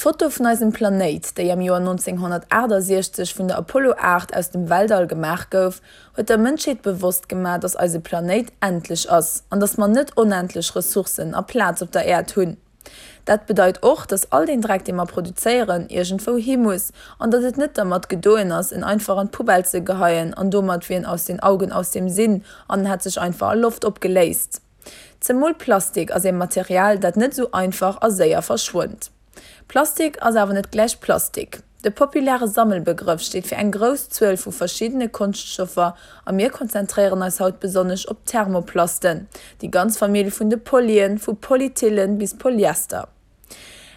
D'Foto vun eisem Planéit, déi am Joer 1968 vun der Apollo 8 aus dem Weltall gemaach gouf, huet der Mënschheet bewosst gemaach, dass eise Planéit endlech ass an dass mer net onendlech Ressourcen a Plaz op der Äerd hunn. Dat bedeit och, dass all deen Dreck, dee mer produzéieren, iergendwou hi muss an datt et net dermat gedoen ass, en einfach an d'Poubelle ze geheien an domat wier en aus den Augen, aus dem Sinn an en hätt sech einfach a Loft opgeléist. Zemol Plastik ass ee Material, dat net esou einfach a séier verschwënnt. Plastik ass awer net gläich Plastik. De populäre Sammelbegrëff steet fir eng grouss Zuel vu verschiddene Konschtstoffer a mir konzentréieren eis haut besonnesch op d'Thermoplasten, déi ganz Famill vun de Polyen, vu Polyethylen bis Polyester.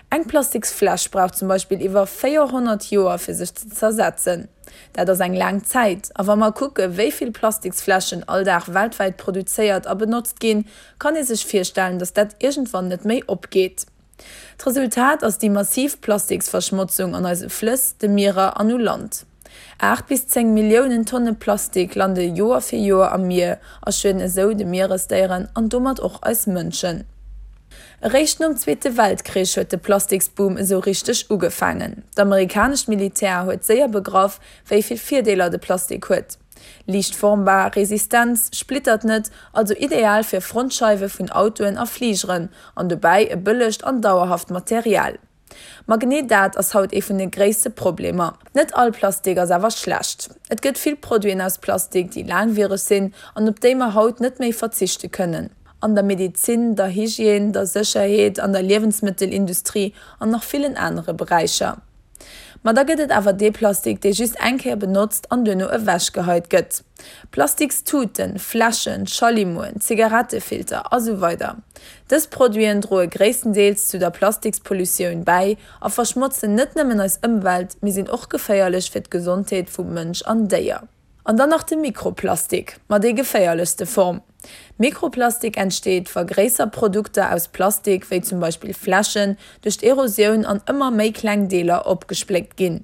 Eng Plastiksfläsch brauch zum Beispill iwwer 400 Joer fir sech ze zersetzen. Dat ass eng laang Zäit. A wa mer kucke wéi vill Plastiksfläschen all Dag weltwäit produzéiert a benotzt ginn, kann ee sech virstellen, datt dat iergendwann net méi opgeet. D'Resultat ass déi massiv Plastiksverschmotzung an eise Flëss, de Mierer an u Land. 8 bis 10 Milliounen Tonne Plastik lande Joer fir Joer am Mier a schueden esou de Mieresdéieren an domat och eis Mënschen. Eréischt nom Zweete Weltkrich huet de Plastiksboom esou richteg ugefaangen. D'amerikanescht Militär huet séier begraff, wéi vill Virdeeler de Plastik huet. Liicht formbar, resistent, splittert net, also ideal fir Frontscheiwe vun Autoen a Fligeren, an dobäi e bëllegt an dauerhaft Material. Ma genee dat ass haut ee vun de gréisste Problemer. Net all Plastik ass awer schlecht. Et gëtt vill Produiten aus Plastik, déi laangwiereg sinn an op déi mer haut net méi verzichte kënnen. An der Medezin, der Hygiène, der Sécherheet, an der Liewensmëttelindustrie an nach villen anere Beräicher. Ma da gëtt et awer dee Plastik, dee just eng Kéier benotzt an duerno ewechgeheit gëtt. Plastikstuten, Fläschen, Schallimoen, Zigarettefilter a sou weider Dës Produiten droe gréisstendeels zu der Plastikspolutioun bäi a verschmotzen net nëmmen eis Ëmwelt, mee sinn och geféierlech fir d'Gesondheet vu Mënsch an Déier. An dann nach de Mikroplastik, ma déi geféierlechste Form. Mikroplastik entsteet, wa gréisser Produkter aus Plastik, wéi zum Beispill Fläschen, duerch d'Erosioun an ëmmer méi kleng Deeler opgespléckt ginn.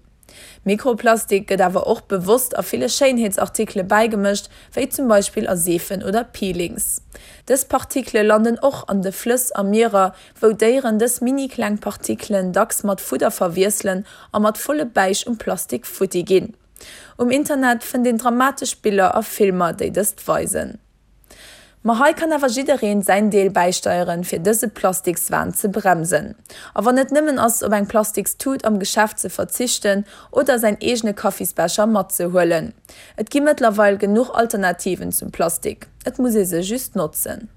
Mikroplastik gëtt awer och bewosst a ville Schéinheetsartikele bäigemëscht, wéi zum Beispill a Seefen oder Peelings. Dës Partikele landen och an de Flëss a Mierer, wou Déieren dës mini-kleng Partikelen dacks mat Fudder verwiesselen a mat volle Bäich um Plastik futti ginn. Um Internet fënnt een dramatesch Biller a Filmer, déi dëst weisen. Ma hei kann awer jiddereen säin Deel bäisteieren, fir dëse Plastikswahn ze bremsen. A wann et nëmmen ass, op eng Plastikstut am Geschäft ze verzichten oder säin eegene Kaffisbecher matzehuelen. Et gi mëttlerweil genuch Alternativen zum Plastik, et muss ee se just notzen.